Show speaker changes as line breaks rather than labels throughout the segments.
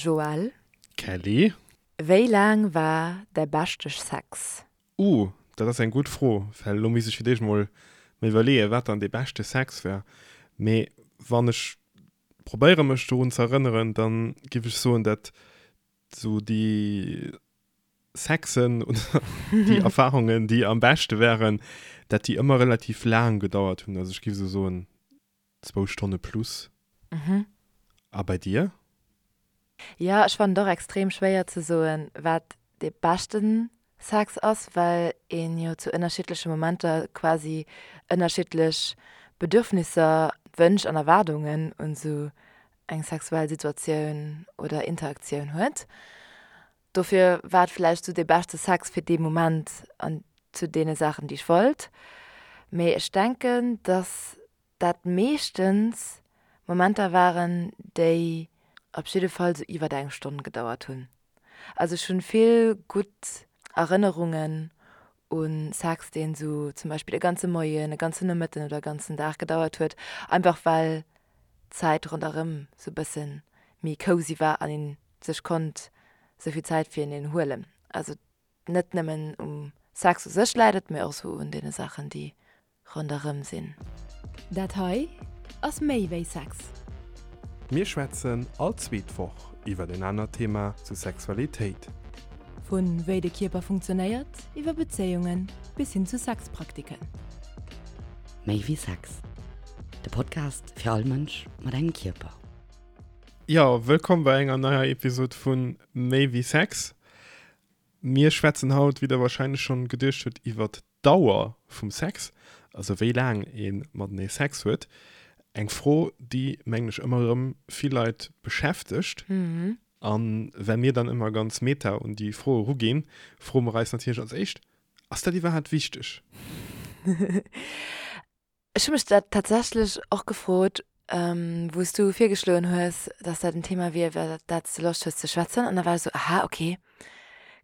Joël.
Kelly.
Wéi laang war däi beschte Sex?
Uh, dat ass eng gutt Fro, well elo misst ech fir d'éischt mol mer iwwerleeën, wat dann dee beschte Sex war. Mee wann ech probéiere mech dorun ze erënneren, da giff ech soen, dat sou déi Sexen oder déi Erfarungen, déi am beschte waren, dat déi ëmmer relativ laang gedauert hunn. Also ech giff esou soen, zwou Stonne plus. A bei dir?
Jo, ech fannen et och extrem schwéier ze soen, wat dee beschten Sex ass, well een jo zu ënnerschiddleche Momenter quasi ënnerschiddlech Bedürfnisser, Wënsch an Erwaardungen un esou eng sexuell Situatioun oder Interaktioun huet. Dofir war et vläicht esou dee beschte Sex fir dee Moment an zu deene Saachen, déi ech wollt. Mee ech denken, dass dat meeschtens Momenter waren, déi op jidde Fall sou iwwert eng Stonn gedauert hunn. Also ech hunn vill gutt Erënnerungen u Sex, deen sou zum Beispill e ganze Moien, e ganzen Nomëtten oder e ganzen Dag gedauert huet, einfach well d'Zäit ronderëm sou bësse méi cozy war an een sech konnt sou vill Zäit fir eneen huelen. Also net nëmmen um Sex u sech läit et, mee och sou un deene Saachen, déi ronderëm sinn.
Dat hei ass méi wéi Sex.
Mir schwätzen all zweet Woch iwwer en anert Thema zu Sexualitéit.
Vu wéi de Kierper funktionéiert, iwwer Bezéiungen bis hin zu Sexpraktiken.
Méi wéi Sex, de Podcast fir all Mënsch mat engem Kierper.
Jo, wëllkomm bei enger neier Episod vu Méi wéi Sex. Mir schwätzen haut, wéi der warscheinlech schonn geduecht hutt, iwwert d'Dauer vum Sex, also wéi laang ee matenee Sex huet. Eng Fro, déi, mengen ech, ëmmer erëm vill Leit beschäftegt. A well mir dann ëmmer ganz meta un déi Fro eruginn, froe mer eis natierlech als éischt, Ass dat iwwerhaapt wichteg?
Ech hu mech dat tatsächlech och gefrot, wou s du virgeschloen hues, dass dat en Thema wier, iwwer dat s de Loscht hues ze schwätzen. An da war ech esou, aha, okay,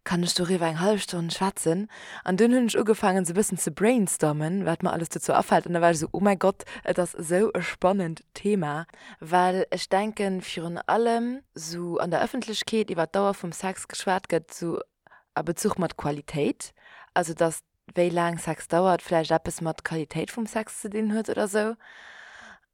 kann ech doriwwer eng hallef Stonn schwätzen? An dunn hunn ech ugefaangen, esou e bëssen ze brainstormen, wat mer alles dozou afält. An da war ech esou, oh mäi Gott, et ass esou e spannend Thema. Well ech denken, virun allem esou an der Ëffentlechkeet iwwer d'Dauer vum Sex geschwat gëtt, esou a Bezuch mat Qualitéit, also dass wéi laang Sex dauert vläicht eppes mat Qualitéit vum Sex ze dinn huet oder sou.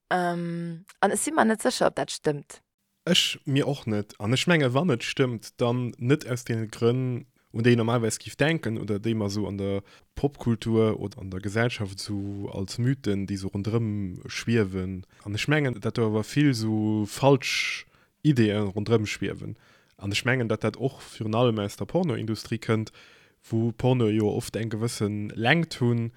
An ech si mer net sécher, ob dat stëmmt.
Ech mir och net. An ech menge wann et stëmmt, dann net aus deene Grënn, un déi een normalerweis giff denken oder déi mer sou an der Popkultur oder an der Gesellschaft sou als Mythen, déi sou ronderëm schwiewen. An ech mengen, dat do awer vill sou falsch Ideeë ronderëm schwiewen. An ech mengen, datt dat och virun allem aus der Pornoindustrie kënnt, wou Pornoe jo oft eng gewësse Längt hunn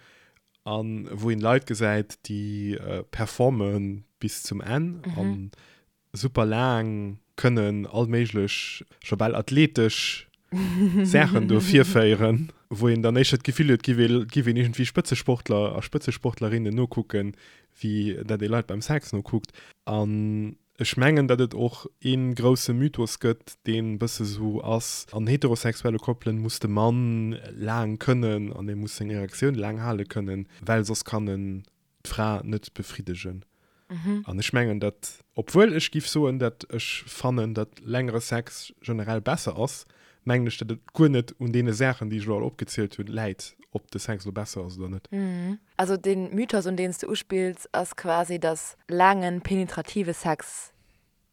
a wou een Leit gesäit, déi performe bis zum Enn a super laang kënnen all méiglech, scho bal athletesch Saachen do virféieren, wou een dann éischter d'Gefill huet, et giff een iergendwéi Spëtzesportler a Spëtzesportlerinnen nokucken, wéi dat ee Leit beim Sex nokuckt. An Ech mengen, datt et och ee grousse Mythos gëtt, deen e bësse sou ass, an heterosexuelle Koppelen muss de Mann laang kënnen an e muss seng Erektioun laang hale kënnen, well soss kann en d'Fra net befriddegen. An ech mengen, datt, obwuel ech giff soen, datt ech fannen, datt längere Sex generell besser ass, mengen ech, datt et guer net un deene Saachen, déi ech elo all opgezielt hunn, läit, ob de Sex elo besser ass oder net.
Also dee Mythos, un deen s de uspills, ass quasi, dass laangen, penetrative Sex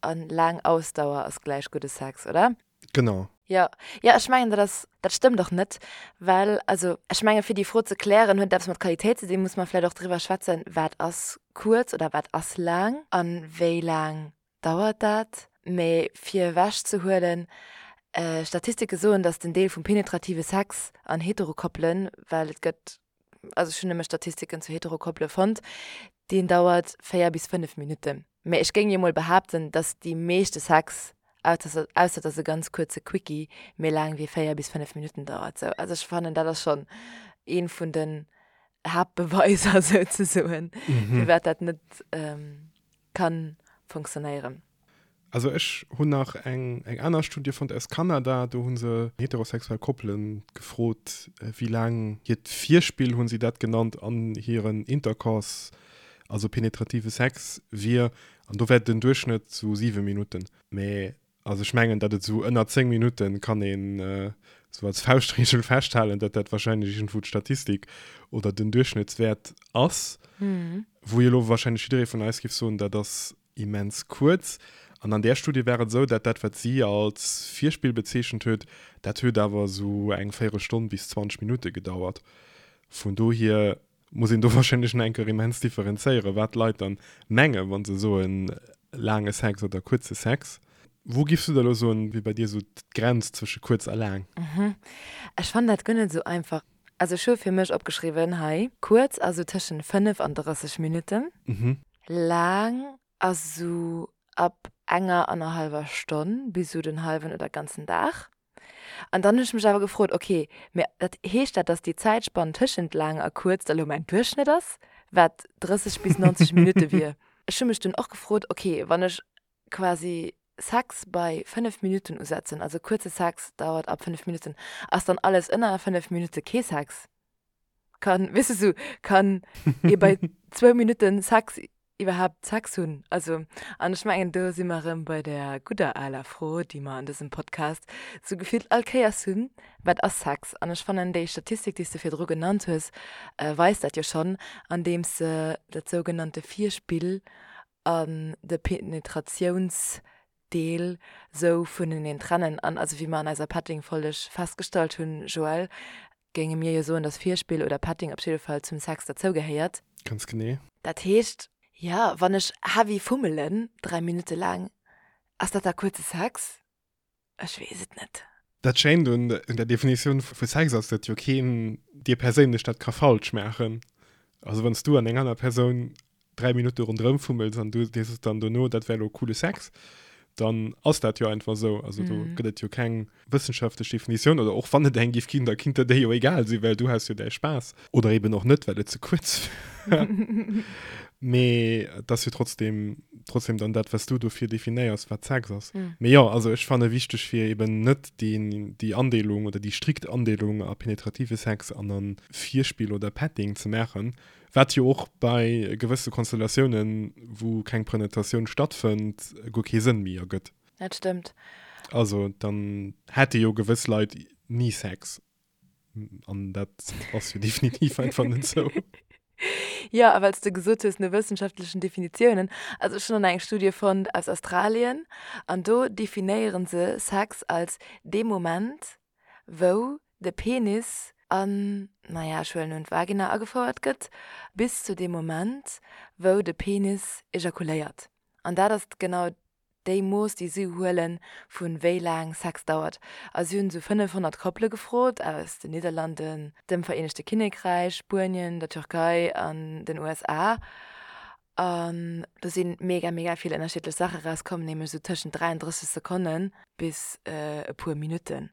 a laang Ausdauer ass gläich gudde Sex, oder?
Genau.
Jo, jo, ech mengen, dat ass, dat stëmmt och net, well, also ech menge fir déi Fro ze klären, huet et eppes mat Qualitéit ze dinn, muss mer vläicht och driwwer schwätzen, wat ass kuerz oder wat ass laang a wéi laang dauert dat. Mee fir ewech ze huelen, Statistike soen, dass den Deel vum penetrative Sex an Heterokoppelen, well et gëtt also ech hunn nëmme Statistiken zu Heterokoppele fonnt, deen dauert 4 bis 5 Minutten. Mä ech géing jo mol behaapten, dass déi meeschte Sex, ausser et ass e ganz kuerze Quickie, méi laang wéi 4 bis 5 Minutten dauert. Sou, also ech fannen, dat ass schonn ee vun den Haaptbeweiser souzesoen, firwat dat net kann funktionéieren.
Also ech hunn nach eng eng aner Studie fonnt aus Kanada, do hu se heterosexuell Koppele gefrot, wéi laang hiert Virspill, hu si dat genannt, an hiren Intercourse, also penetrative Sex, wier. An do wär den Duerchschnëtt sou 7 Minutten. Mä. Also ech mengen, datt et esou ënner 10 Minutte kann een esou als Fauschtregel festhalen, datt dat wahrscheinlech iergendwou d'Statistik oder den Duerchschnëttswäert ass, wou jo elo wahrscheinlech jidderee vun eis géif soen, dat ass immens kuerz. An an där Studie war et esou, datt dat, wat si als Virspill bezeechent huet, dat huet awer esou eng Véierelstonn bis 20 Minutte gedauert. Vun dohier muss een do wahrscheinlech nach eng Kéier immens differenzéieren, wat d'Leit dann mengen, wa se soen laange Sex oder kuerze Sex. Wou giffs du da elo soen, wier bei dir esou d'Grenz zwësche kuerz a laang?
Ech fannen dat guer net esou einfach. Also ech hu fir mech opgeschriwwen hei, kuerz ass esou tëschent 5 an 30 Minutten, laang ass esou ab enger annerhallwer Stonn bis esou den hallwen oder ganzen Dag. An dann hunn ech mech awer gefrot, ok, mä dat heescht dat, datt déi Zäitspann tëschent laang a kuerz da lo mäin Duerchschnëtt ass, wat 30 bis 90 Minutte wier? Ech hu mech dunn och gefrot, ok, wann ech quasi Sex bei 5 Minutten usetzen, also kuerze Sex dauert ab 5 Minutten, ass dann alles ënner 5 Minutte kee Sex? Kann, weess de sou, kann ee bei zwou Minutten Sex iwwerhaapt Sex hunn? Also, an ech mengen, do si mer erëm bei där gudder aler Fro, déi mer an dësem Podcast sou gefillt all Kéiers hunn, Wat ass Sex? An ech fannen, déi Statistik, déi s de virdru genannt hues, weist dat jo schonn, andeems se dat sougenannte Virspill an de Penetratiounsdeel sou vuneneen trennen. An also, wéi mer an eiser Petting-Folleg festgestallt hunn, Joël, géinge mir jo soen, dass Virspill oder Petting op jidde Fall zum Sex derzou gehéiert.
Ganz genee.
Dat heescht, jo, wann ech heavy fummelen, 3 Minutte laang, ass dat da kuerze Sex? Ech weess et net.
Dat Schéint un der Definitioun vu Sex ass, datt jo keen dir perséinlech dat ka falsch maachen. Also wann s du an eng aner Persoun 3 Minutte ronderëm fummels an du dir sos dann dono, dat wär elo coole Sex, dann ass dat jo einfach esou. Also do gëtt et jo keng wëssenschaftlech Definitioun oder och wann et eng géif ginn, da kinnt der déi jo egal sinn, well du has jo däi Spaass. Oder eben och net, well et ze kuerz war. Mee et ass jo trotzdem, trotzdem dann dat, wat s du dofir definéiers, wat Sex ass. Mee jo, also ech fanne wichteg, fir eben net déi, déi Andeelung oder déi strikt Andeelung a penetrative Sex an a Virspill oder Petting ze maachen, wat jo och bei gewësse Konstellatiounen, wou keng Prenetatioun stattfënnt, guer kee Sënn méi ergëtt.
Dat stëmmt.
Also dann hätte jo gewëss Leit ni Sex. An dat ass jo definitiv einfach net sou.
Jo, a well s de gesot hues, no wëssenschaftlechen Definitiounen, also ech hunn an eng Studie fonnt aus Australien an do definéiere se Sex als dee Moment, wou de Penis an, naja, ech huelen un, d'Vagina agefouert gëtt, bis zu deem Moment, wou de Penis ejakuléiert. An dat ass genau déi Mooss, déi si huelen, vu wéi laang Sex dauert. A si hunn esou 500 Koppele gefrot aus den Nidderlanden, dem Vereenegte Kinnekräich, Spuenien, der Türkei an den USA. An do si mega, mega vill ënnerschiddlech Saache rauskomm, nämlech esou tëschent 33 Sekonne bis e puer Minutten.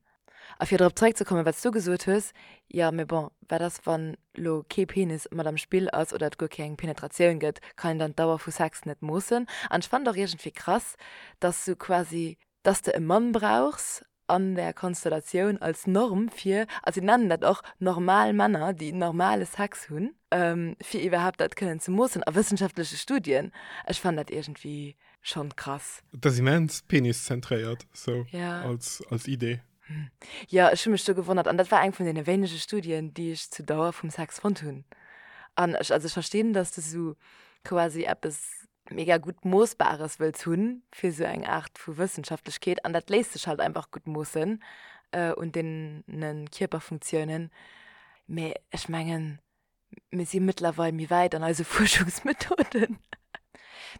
A fir drop zeréckzekommen, wat s du gesot hues, jo, mee bon, wat ass, wann lo kee Penis mat am Spill ass oder et guer keng Penetratioun gëtt, kann een dann d'Dauer vu Sex net moossen? An ech fannen et och iergendwéi krass, dass sou quasi, dass de e Mann brauchs an där Konstellatioun als Norm fir, a si nennen dat och normal Männer, déi normale Sex hunn, fir iwwerhaapt dat kënnen ze moossen a wëssenschaftleche Studien. Ech fannen dat iergendwéi Schon krass.
Et ass immens peniszentréiert sou als als Idee.
Jo, ech hu mech do gewonnert an dat war eng vun deene wéinege Studien, déi ech zu Dauer vum Sex fonnt hunn. An ech, also ech verstinn, dass de sou quasi eppes mega gutt Moossbares wëlls hunn fir sou eng Aart vu Wëssenschaftlechkeet an dat léisst sech halt einfach gutt moossen un deene Kierperfunktiounen. Mee ech mengen, Mir si mëttlerweil méi wäit an eise Fuerschungsmethoden.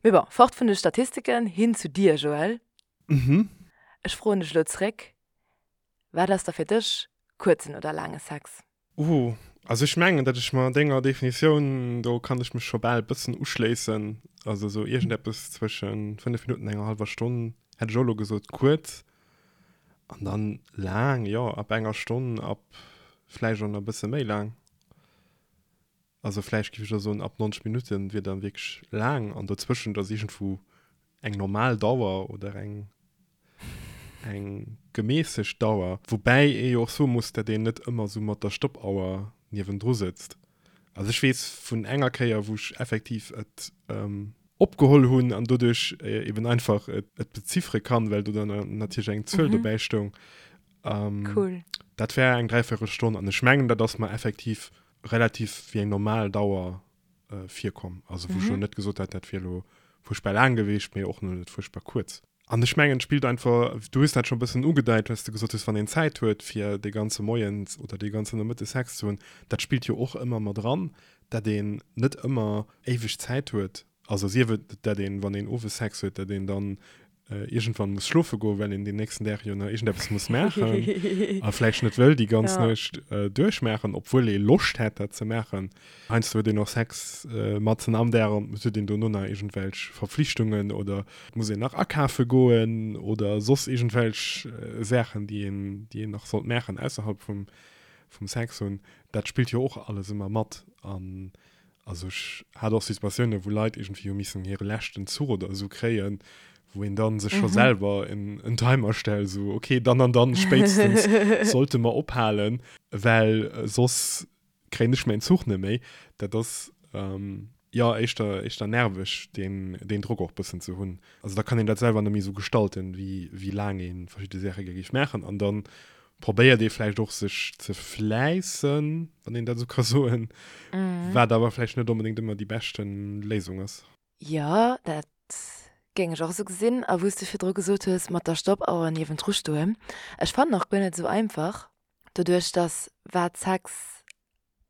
Mee bon, fort vun de Statistiken, hin zu dir, Joël.
Mhm.
Ech froen dech elo zréck, Wat ass da fir dech kuerzen oder laange Sex?
Uh, also ech mengen, datt ech mer denger Definitioun, do kann ech mech scho bal bëssen uschléissen. Also esou iergendeppes zwësche 5 Minutten an enger hallwer Stonn hätt ech och elo gesot, kuerz. An dann laang, jo, ab enger Stonn, ab vläicht och nach e bësse méi laang. Also vläicht géif ech da soen, ab 90 Minutten wier dann wierklech laang an dozwëschent ass iergendwou eng normal Dauer oder eng eng gemässegt Dauer. Woubäi ee jo och soe muss, datt een net ëmmer esou mat der Stoppauer niewendru sëtzt. Also ech weess vun enger Kéier, wou ech effektiv et. Opgeholl hunn an doduerch eben einfach et beziffere kann, well do dann natierlech eng Zuel dobäi stoung.
Cool.
Dat war eng Dräiviertelstonn an ech mengen, dat ass mer effektiv relativ wéi eng normal Dauer virkomm. Also wou ech elo net gesot hätt, dat wier elo fuerchtbar laang gewiescht, mee och net fuerchtbar kuerz. An ech mengen, et spillt einfach, du hues dat scho e bëssen ugedeit, well s de gesot hues, wann een Zäit huet, fir dee ganze Moien oder dee ganzen Nomëtte Sex ze hunn, dat spillt jo och ëmmer mat eran, dat een net ëmmer éiweg Zäit huet. Also sief et, dat een, wann een owes Sex huet, dat een dann iergendwann muss schlofe goen, well een deen nächsten Dag jo nach iergendeppes muss maachen a vläicht net wëll déi ganz Nuecht duerchmaachen, obwuel ee Loscht hätt, dat ze maachen. Heiansdo huet een och Sex matzen am Dag an et huet een dono nach iergendwelch Verflichtungen oder et muss een nach akafe goen oder soss iergendwelch Saachen, déi een, déi een nach sollt maachen ausserhalb vum, vum Sex hunn. Dat spillt jo och alles ëmmer mat. An also ech hat och Situatiounen, wou Leit iergendwéi hu missen hire leschten Zuch oder esou kréien, wou een dann sech scho selwer en, en Timer stellt, esou okay, dann an dann spéitstens sollte mer ophalen, well soss kréien ech mäin Zuch net méi. Dat ass jo éischter éischter nerveg, deen deen Drock och bëssen ze hunn. Also da kann een dat selwer net méi esou gestalten, wéi wéi laang ee verschidde Saache gär géif maachen. An da probéiert ee vläicht och sech ze fläissen, wann een dat esou ka soen, wat awer vläicht net onbedéngt ëmmer déi beschte Léisung ass.
Jo, dat géing ech och esou gesinn. A wou s de virdru gesot hues mat der Stoppauer niewendru stoen, ech fannen och guer net esou einfach, doduerch dass wat Sex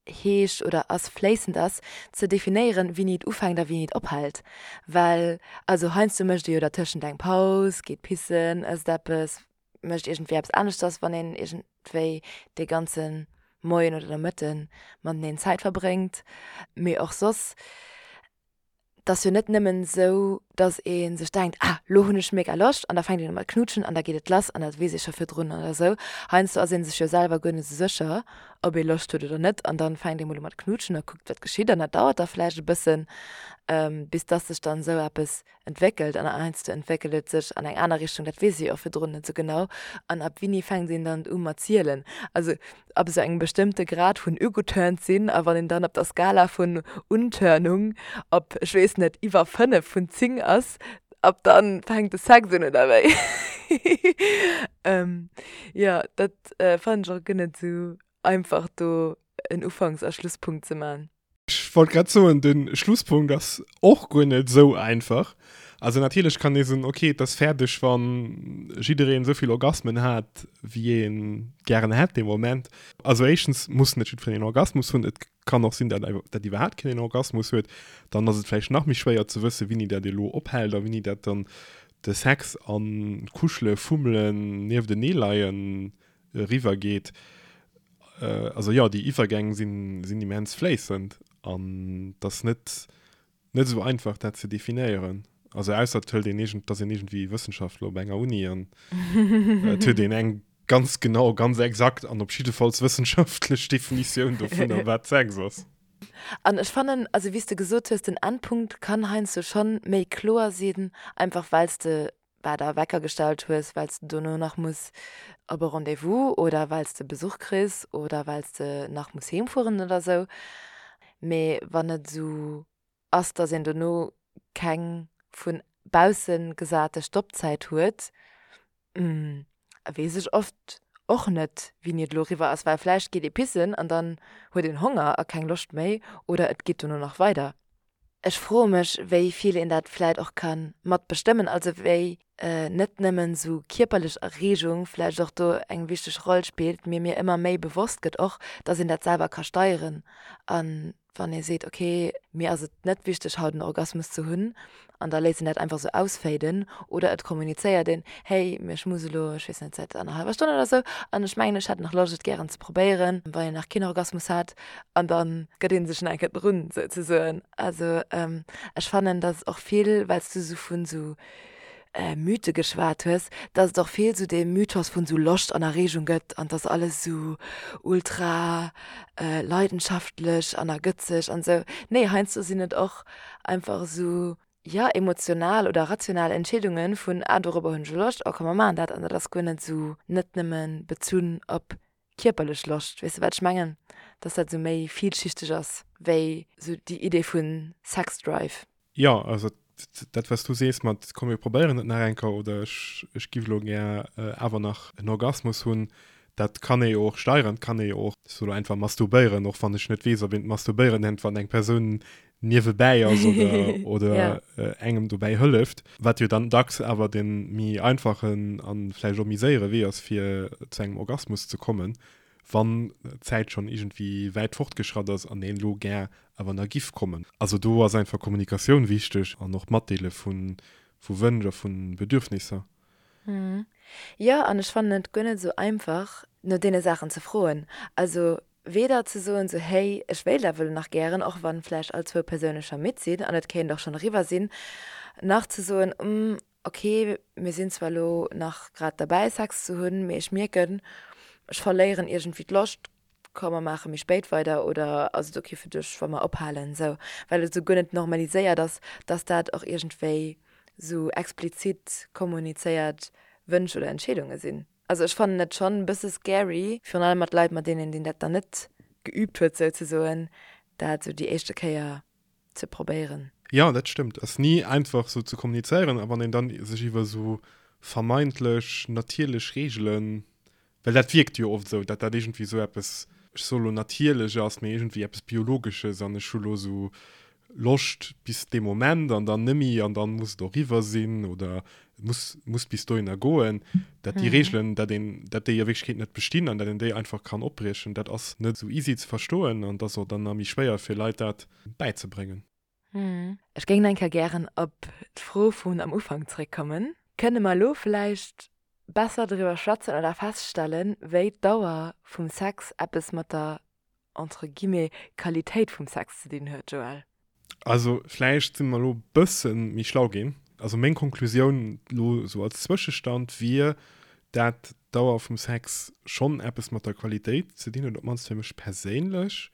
heescht oder ass, fléissend ass, ze definéieren, wéini et ufänkt a wéini et ophält. Well also heiansdo mécht ee jo dertëschent eng Paus, geet pissen, ësst eppes, mécht iergendwéi eppes aneschters, wann een iergendwéi dee ganze Moien oder Nomëtte mateneen Zäit verbréngt. Mee och soss. 't ass jo net nëmmen esou, dass ee sech denkt, ah, lo hunn ech mega Loscht an da fänkt een u mat knutschen an da geet et lass an dat weess ee scho virdrun oder esou. Heiansdo ass ee sech jo selwer guer net esou sécher, ob ee Loscht huet oder net an dann fänkt ee mol u mat knutschen a kuckt, wat geschitt an dat dauert da vläicht e bëssen, bis dass sech dann esou eppes entwéckelt an heiansdo entwéckelt et sech an eng aner Richtung, dat weess ee jo och virdrun net esou genau. An ab wéini fänkt een dann u mat zielen? Also ab esou engem bestëmmte Grad vun ugeturnt sinn a wann een dann op der Skala vun Unturnung op, ech weess net, iwwer 5 vun 10 ass, ab dann fänkt de Sex un, oder wéi? Jo, dat fannen ech och guer net esou einfach do en Ufanks a Schlusspunkt ze man.
Ech wollt grad soen, de Schlusspunkt ass och guer net esou einfach. Also natierlech kann ee soen, okay, et ass fäerdeg, wa jiddereen esou vill Orgasmen hat, wéi ee gären hätt dee Moment. Also éischtens muss net jiddwereen een Orgasmus hunn. Et kann och sinn, dat dat iwwerhaapt keen een Orgasmus huet. Dann ass et vläicht nach méi schwéier ze wëssen, wéini dat elo ophält a wéini dat dann de Sex an d'Kuschele, Fummelen, Niefteneeleien eriwwer geet. Also jo, déi Iwwergäng sinn, sinn immens fléissend an et ass net, net esou einfach dat ze definéieren. Also ausser et hëlt een iergend, et ass een iergendwéi Wëssenschaftler op enger Uni an et huet een eng ganz genau, ganz exakt an op jiddefalls wëssenschaftlech Definitioun dovunner, wat Sex ass.
An ech fannen, also wéi s de gesot hues, den Endpunkt kann heiansdo schonn méi kloer sinn, einfach well s de bah, der Wecker gestallt hues, well s de dono nach muss op e Rendez-vous oder well s de Besuch kriss oder well s de nach muss heem fueren oder sou. Mee wann et esou ass, dass een dono keng vu bausse gesate Stoppzäit huet, weess ech oft och net, wéini et elo eriwwer ass, well vläicht geet ee pissen an dann huet een Honger a keng Loscht méi oder et geet dono nach weider. Ech froe mech, wéi vill een dat vläit och ka mat bestëmmen, also wéi net nëmmen esou kierperlech Erreegung vläicht och do eng wichteg Roll spillt, mee mir ëmmer méi bewosst gëtt och, dass een dat selwer ka steieren. A wann ee seet, okay, mir ass et net wichteg haut en Orgasmus ze hunn, an da léisst een dat einfach esou ausfaden oder et kommunizéiert een, hey, mee ech muss elo, ech weess net, säit annerhallwer Stonn oder esou an ech mengen, ech hätt nach Loscht et gären ze probéieren, wann een nach keen Orgasmus hat. An da gëtt ee sech nach eng Kéier drun, souzesoen. Also ech fannen, datt och vill, well s du esou vun esou Mythe geschwat hues, datt et och vill esou dee Mythos vun esou Loscht an Erreegung gëtt an datt alles esou ultra leidenschaftlech an ergëtzeg an esou. Nee, heiansdo sinn et och einfach esou, jo, emotional oder rational Entscheedunge vun, ah, dorobber hunn ech elo Loscht, oh komm mer maachen dat. An dat ass guer net esou, net nëmme bezunn op kierperlech Loscht, weess de wat ech mengen? Dass dat esou méi vielschichteg ass wéi esou déi Idee vu Sexdrive.
Jo, also. Dat wat s du sees mat komm mir probéieren et nach eng Kéier oder ech ech giff elo gär awer nach en Orgasmus hunn, dat kann ee jo och steieren, kann ee jo och, ech soe lo einfach masturbéieren, och wann ech net weess ob een et masturbéieren nennt wann eng Persoun niewebäi ass oder oder engem dobäi hëlleft, wat jo dann dacks awer de méi einfachen a vläicht och méi séiere Wee ass fir zu engem Orgasmus ze kommen. wann d'Zäit schonn iergendwéi wäit fortgeschratt ass an een elo gär awer nach giff kommen. Also do ass einfach Kommunikatioun wichteg an och d'Matdeele vu Wënsch a vu Bedürfnisser.
Jo, an ech fannen et guer net esou einfach, no deene Saachen ze froen. Also weder ze soen esou, hey, ech wéilt awer elo nach gären, och wann vläicht all zwou Persoune scho midd sinn an et kéint och schonn eriwwer sinn, nach ze soen, Ok, mir sinn zwar elo nach grad derbäi Sex ze hunn, mee ech mierken, ech verléieren iergendwéi d'Loscht, komm mer maache méi spéit weider oder ass et ok fir dech wa mer ophalen esou, well et esou guer net normaliséiert ass, dass dat och iergendwéi esou explizit kommunizéiert Wënsch oder Entscheedunge sinn. Also ech fannen et schonn e bësse scary, virun allem mat Leit mat deenen een dat dann net geüübt huet souzesoen, dat esou déi éischte Kéier ze probéieren.
Jo, dat stëmmt. Ass ni einfach sou ze kommunizéieren a wann een dann sech iwwer sou vermeintlech natierlech Reegelen, well dat wierkt jo oft sou, dat dat iergendwéi sou eppes, ech soe lo natierlech ass, mee iergendwéi eppes Biologesches an ech hu lo sou Loscht bis dee Moment an dann nemmi an dann muss et och riwwer sinn oder et muss muss bis dohinner goen, dat déi Reegelen, dat een, dat déi a Wierklechkeet net bestinn an dat een déi einfach kann opbriechen, dat ass net esou easy ze verstoen an et ass och dann nach méi schwéier fir Leit dat bäizebréngen.
Ech géing nach eng Kéier gären op d'Fro vun am Ufank zréckkommen. Kënne mer elo vläicht besser driwwer schwätzen oder feststellen, wéi d'Dauer vum Sex eppes mat der entre guillemets, Qualitéit vum Sex ze dinn huet, Joël?
Also vläicht si mer elo e bësse méi schlau ginn. Also meng Konklusioun elo esou als Zwëschestand wier, dat d'Dauer vum Sex schonn eppes mat der Qualitéit ze dinn huet, op d'mannst fir mech perséinlech,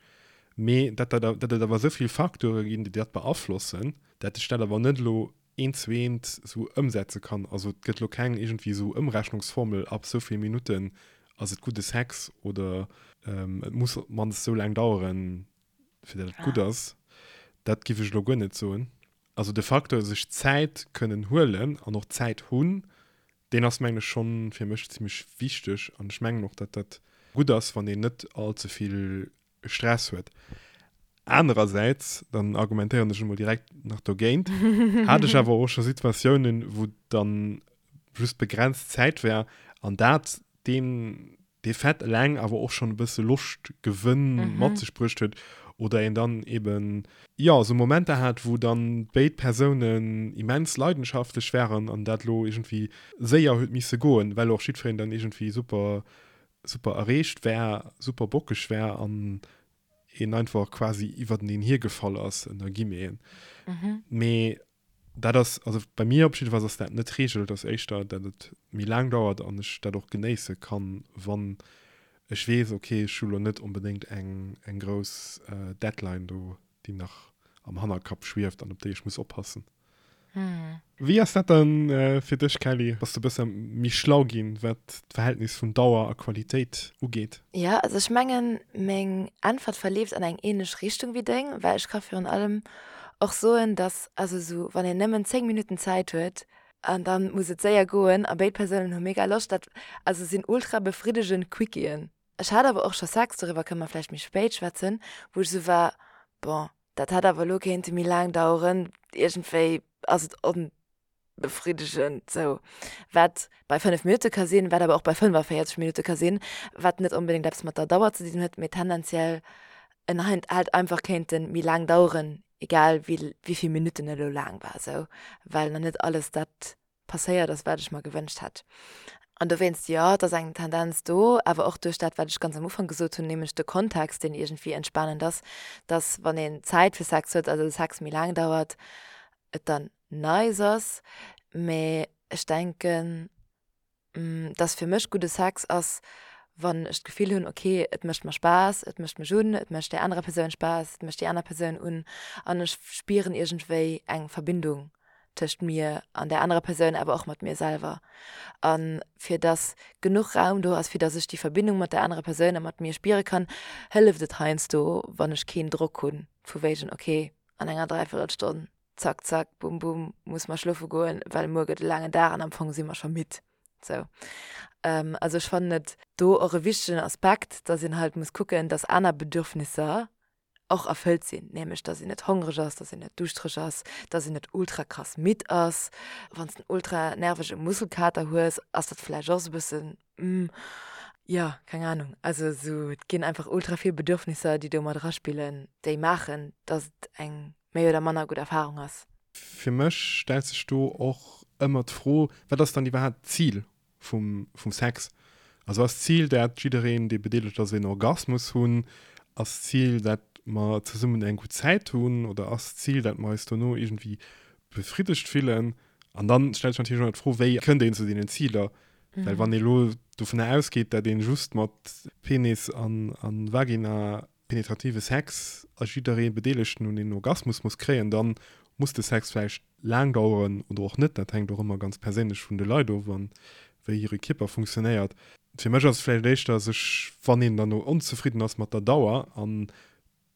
mee dat dat et awer esou vill Facteure ginn, déi dat beaflossen, dat ech dat awer net elo eent zu eent esou ëmsetze kann. Also et gëtt elo keng iergendwéi esou Ëmrechnungsformel, ab esou vill Minutten ass et gudde Sex oder et muss op d'mannst esou laang daueren, fir datt et gutt ass. Dat giff ech elo guer net soen. Also de Facteur sech Zäit kënnen huelen an och Zäit hunn, deen ass mengen ech schonn fir mech zimmlech wichteg an ech mengen och, datt dat gutt ass, wann een net all ze vill Stress huet. Anerersäits, dann argumentéieren ech emol direkt nach dogéint, hat ech awer och scho Situatiounen, wou dann just begrenzt Zäit war an dat deen dee Fait eleng awer och schonn e bësse Loschtgewënn mat sech bruecht huet oder een dann eben, jo, esou Momenter hat, wou dann béid Persounen immens leidenschaftlech waren an dat elo iergendwéi séier huet misse goen, well och jiddwereen dann iergendwéi super super erreegt war, super bockeg war an een einfach quasi iwwerteneen hiergefall ass, ënner Guillemeten. Mee dat ass, also bei mir op jiddefalls ass dat net d'Reegel, et ass éischter, dat et méi laang dauert an ech dat och genéisse kann, wann ech weess, okay, ech hu lo net onbedéngt eng, eng grouss Deadline do, déi nach am Hannerkapp schwieft an op déi ech muss oppassen. Wéi ass dat dann fir dech, Kelly? Bass de bësse méi schlau ginn, wat d'Verhältnis vun Dauer a Qualitéit ugeet?
Jo, also ech mengen, meng Äntwert verleeft an eng ähnlech Richtung wéi deng, well ech ka virun allem och soen, dass, also esou wann een nëmmen 10 Minutten Zäit huet an dann muss et séier goen a béid Persounen hu mega Loscht, dat also sinn ultra befriddegend Quickiën. Ech hat awer och scho Sex, doriwwer kënne mer vläicht méi spéit schwätzen, wou ech esou war, bon, dat hätt awer elo kéinte méi laang daueren, iergendwéi ass et onbefriddegend sou. Wat bei 5 Minutte ka sinn, wat awer och bei 45 Minutte ka sinn, wat net onbedéngt eppes mat der Dauer ze dinn huet, mee tendenziell en hätt einfach kéinte méi laang daueren, egal wéi vill Minutten et elo laang war sou, well nach net alles dat passéiert ass, wat ech mer gewënscht hätt. An dowéinst, jo, et ass eng Tendenz do, awer och duerch dat, wat ech ganz am Ufank gesot hunn, nämlech de Kontext, deen iergendwéi entspanend ass, dass, wann een Zäit fir Sex huet, also de Sex méi laang dauert, et dann nice ass. Mee ech denken, dass fir mech gudde Sex ass, wann ech d'Gefill hunn, ok, et mécht mer Spaass, et mécht mech un, et mécht där anerer Persoun Spaass, et mécht déi aner Persoun un an ech spieren iergendwéi eng Verbindung tëscht mir an där anerer Persoun, awer och mat mir selwer. A fir dass genuch Raum do ass, fir dass ech déi Verbindung mat där anerer Persoun a mat mir spiere kann, hëlleft et heiansdo, wann ech keen Drock hunn, vu wéigen, ok, an enger Dräiviertelstonn. Zack, zack, bum, bum, muss mer schlofe goen, well muer gëtt e laangen Dag an am Fong si mer scho midd. Sou. Also ech fannen et do och e wichtegen Aspekt, dass een halt muss kucken, dass aner Bedürfnisser och erfëllt sinn, nämlech dass een net hongreg ass, dass een net duuschtereg ass, dass een net ultra krass midd ass. Wann s de en ultra nervege Muskelkater hues, ass dat vläicht och sou e bëssen, mm, jo, keng Anung. Also sou, et ginn einfach ultra vill Bedürfnisser, déi do mat eraspillen, déi maachen, dass et eng méi oder manner gutt Erfarung ass.
Fir mech stellt sech do och ëmmer d'Fro, Wat ass dann iwwerhaapt d'Zil vum, vum Sex. Also ass d'Zil dat jiddereen dee bedeelegt ass een Orgasmus hunn? Ass d'Zil dat mer zesummen eng gutt Zäit hunn? Oder ass d'Zil dat mer eis dono iergendwéi befriddegt fillen? An dann stellt sech natierlech och nach d'Fro, wéi kënnt een zu deenen Ziler? Well wann ee lo dovunner ausgeet, dat een just mat Penis an, an Vagina penetrative Sex a jidderee Bedeelegten un een Orgasmus muss kréien, dann muss de Sex vläicht laang daueren oder och net, dat hänkt och ëmmer ganz perséinlech vun de Leit of an wéi hire Kierper funktionéiert. Fir mech ass et vläicht éischter sech, wann een dann onzefridden ass mat der Dauer an et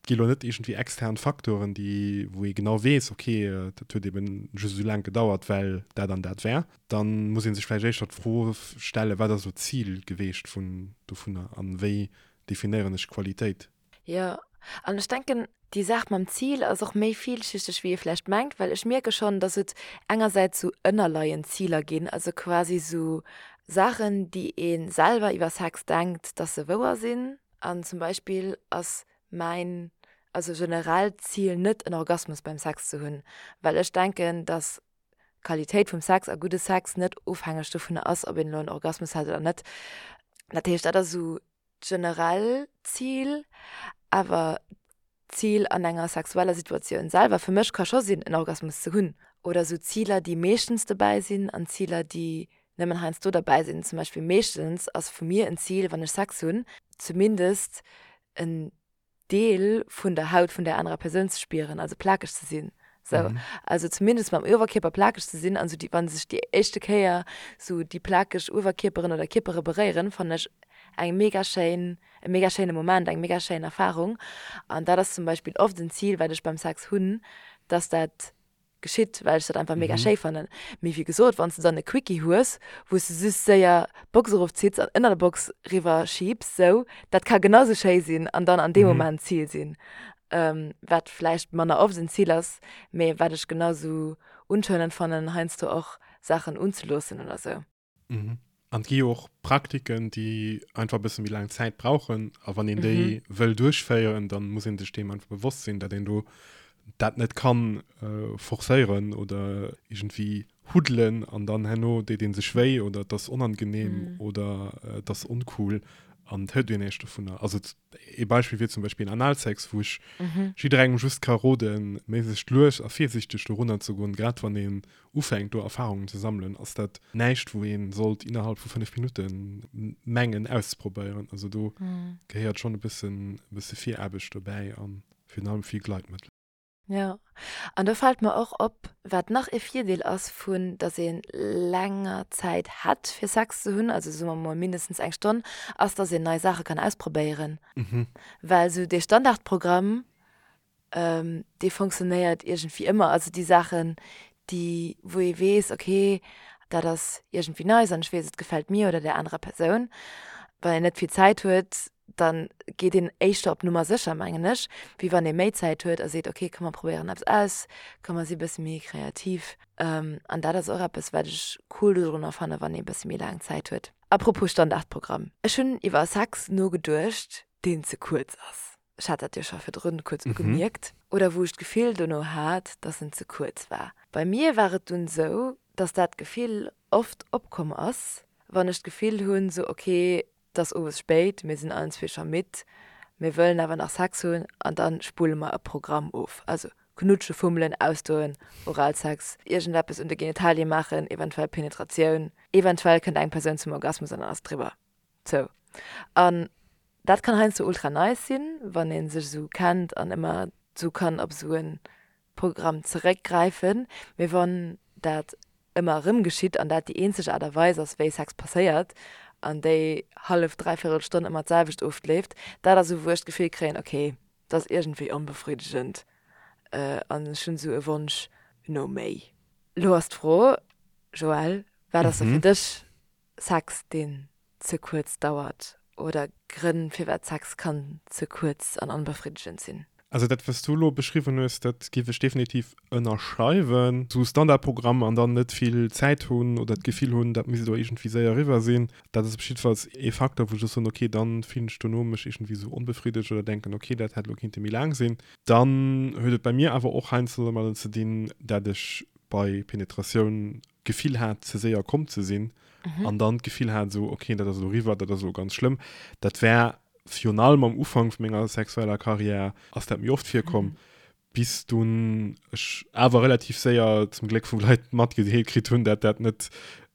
gi lo net iergendwéi extern Faktoren, déi wou ee genau weess, ok dat huet eben just esou laang gedauert well dat an dat war, dann muss ee sech vläicht éischter d'Fro stellen, wat ass elo d'Zil geweecht vun dovunner an wéi definéieren ech Qualitéit?
Jo, an ech denken, déi Saach mam Zil ass och méi villschichteg, wéi ee vläicht mengt, well ech mierke schonn, dass et engersäits sou ënnerleiend Ziler ginn, also quasi sou Saachen, déi ee selwer iwwer Sex denkt, dass se wouer sinn. An zum Beispill ass mäin, also generellt Zil net, en Orgasmus beim Sex ze hunn, well ech denken, dass d'Qualitéit vum Sex a gudde Sex net ofhängeg dovunner ass, ob een elo en Orgasmus hat oder net. Dat heescht, dat ass esou d'generell Zil. Awer d'Zil an enger sexueller Situatioun selwer fir mech ka scho sinn, en Orgasmus ze hunn. Oder esou Ziler, déi meeschtens dobäi sinn an Ziler, déi nëmmen heiansdo derbäi sinn. Zum Beispill meeschtens ass vu mir en Zil, wann ech Sex hunn, zumindest en Deel vun der Haut vun där anerer Persoun ze spieren, also plakeg ze sinn. Sou, mhm. Also zumindest mam Uewerkierper plakeg ze sinn, an sou déi, wann sech déi éischte Kéier sou déi plakeg Uewerkierperen oder Kierpere beréieren, fannen ech eng mega schéin, e mega schéine Moment, eng mega schéin Erfahrung. An dat ass zum Beispill oft en Zil, wat ech beim Sex hunn, dass dat geschitt, well ech dat einfach mega schéi fannen. Mee wéi gesot, wann s de dann e Quickie hues, wou s de just séier d'Box erofzitts an ënner der Box riwwer schiebs, sou, dat ka genau sou schéi sinn an dann an deem Moment d'Zil sinn. Wat vläicht manner oft en Zil ass, mee wat ech genau sou unscheinend fannen, heiansdo och Saachen unzeloossen oder sou.
Mhm. An et gi jo och Praktiken, déi einfach e bësse méi laang Zäit brauchen. A wann een déi mhm. wëll duerchféieren, dann muss een sech deem einfach bewosst sinn, dat een do dat net kann äh, forcéieren oder irgendwie huddelen an dann herno deet een sech wéi oder et ass onangenehm mhm. oder äh, et ass oncool an et hëlt een näischt dovunner. Also ee Beispill wier zum Beispill Analsex, wou ech mhm. jidderengem just ka roden, méiglechst lues a virsichteg dorunner ze goen, grad wann een ufänkt do Erfahrungen ze sammelen, ass dat näischt wou een sollt innerhalb vu 5 Minutten mengen auszeprobéieren. Also do mhm. gehéiert schon e bëssen e bësse Viraarbecht dobäi an virun allem vill Gleitmëttel.
Ja, an do fält mer och op, wat nach e Virdeel ass vun, dass ee länger Zäit hätt fir Sex ze hunn, also soe mer mol mindestens eng Stonn, ass, dass een nei Saache kann ausprobéieren.
Mhm.
Well sou dee Standardprogramm, dee fonctionnéiert iergendwéi ëmmer. Also déi Saachen, déi, wou ee weess, okay, dat ass iergendwéi nice an ech weess, et gefält mir oder där anerer Persoun. Wann een net vill Zäit huet, da geet een éischter op Nummer sécher, mengen ech, wéi wann ee méi Zäit huet a seet, okay, komm mer probéieren eppes aus, komm mer si bësse méi kreativ. An dat ass och eppes, wat ech cool dodrunner fannen, wann ee bësse méi laang Zäit huet. Apropos Standardprogramm, ech hunn iwwer Sex nogeduecht, deen ze kuerz ass. Ech hat dat jo scho virdrun kuerz ugemierkt. Oder wou ech d'Gefill dono hat, dass en ze kuerz war. Bei mir war et dunn sou, dass dat Gefill oft opkomm ass, wann ech d'Gefill hunn, sou ok, et ass owes spéit, mir sinn allen zwee scho midd, mir wëllen awer nach Sex hunn an dann spulle mer e Programm of. Also knutsche, fummelen, ausdoen, Oralsex, iergendeppes un de Genitalie maachen, eventuell Penetratioun, eventuell kënnt eng Persoun zum Orgasmus an dann ass et eriwwer. Sou. An dat kann heiansdo ultra nice sinn, wann ee sech esou kennt an ëmmer esou kann op esou e Programm zeréckgräifen. Mee wann dat ëmmer erëm geschitt an dat déi eenzeg Aart a Weis ass, wéi Sex passéiert an déi hallef, dräivierel Stonn ëmmer d'selwecht ofleeft, dat ass esou, wou ech d'Gefill kréien, okay, dat ass iergendwéi onbefriddegend an ech hunn esou e Wonsch. no méi. Lo ass d'Fro, Joël, wat ass da fir dech Sex, deen ze kuerz dauert oder Grënn firwat Sex kann ze kuerz an onbefriddegend sinn?
Also dat wat s du elo beschriwwen hues, dat géif ech definitiv ënnerschreiwen. Sou Standardprogramm an dann net vill Zäit hunn oder d'Gefill hunn, dat misst elo iergendwéi séier eriwwer sinn, dat ass op jiddefalls ee Facteur, wou ech soen, okay, dann fillen ech dono mech iergendwéi sou onbefriddegt oder denken, okay, dat hätt elo kinnte méi laang sinn. Dann huet et bei mir awer och heiansdo domadden ze dinn, dat ech bei Penetratioun d'Gefill hat, ze séier komm ze sinn an dann d'Gefill hat, esou, okay, dat ass elo eriwwer, dat ass elo ganz schlëmm. Dat war virun allem am Ufank vu menger sexueller Karriär ass dat méi oft virkomm, bis dunn ech awer relativ séier zum Gléck vu Leit matgedeelt kritt hunn, dat dat net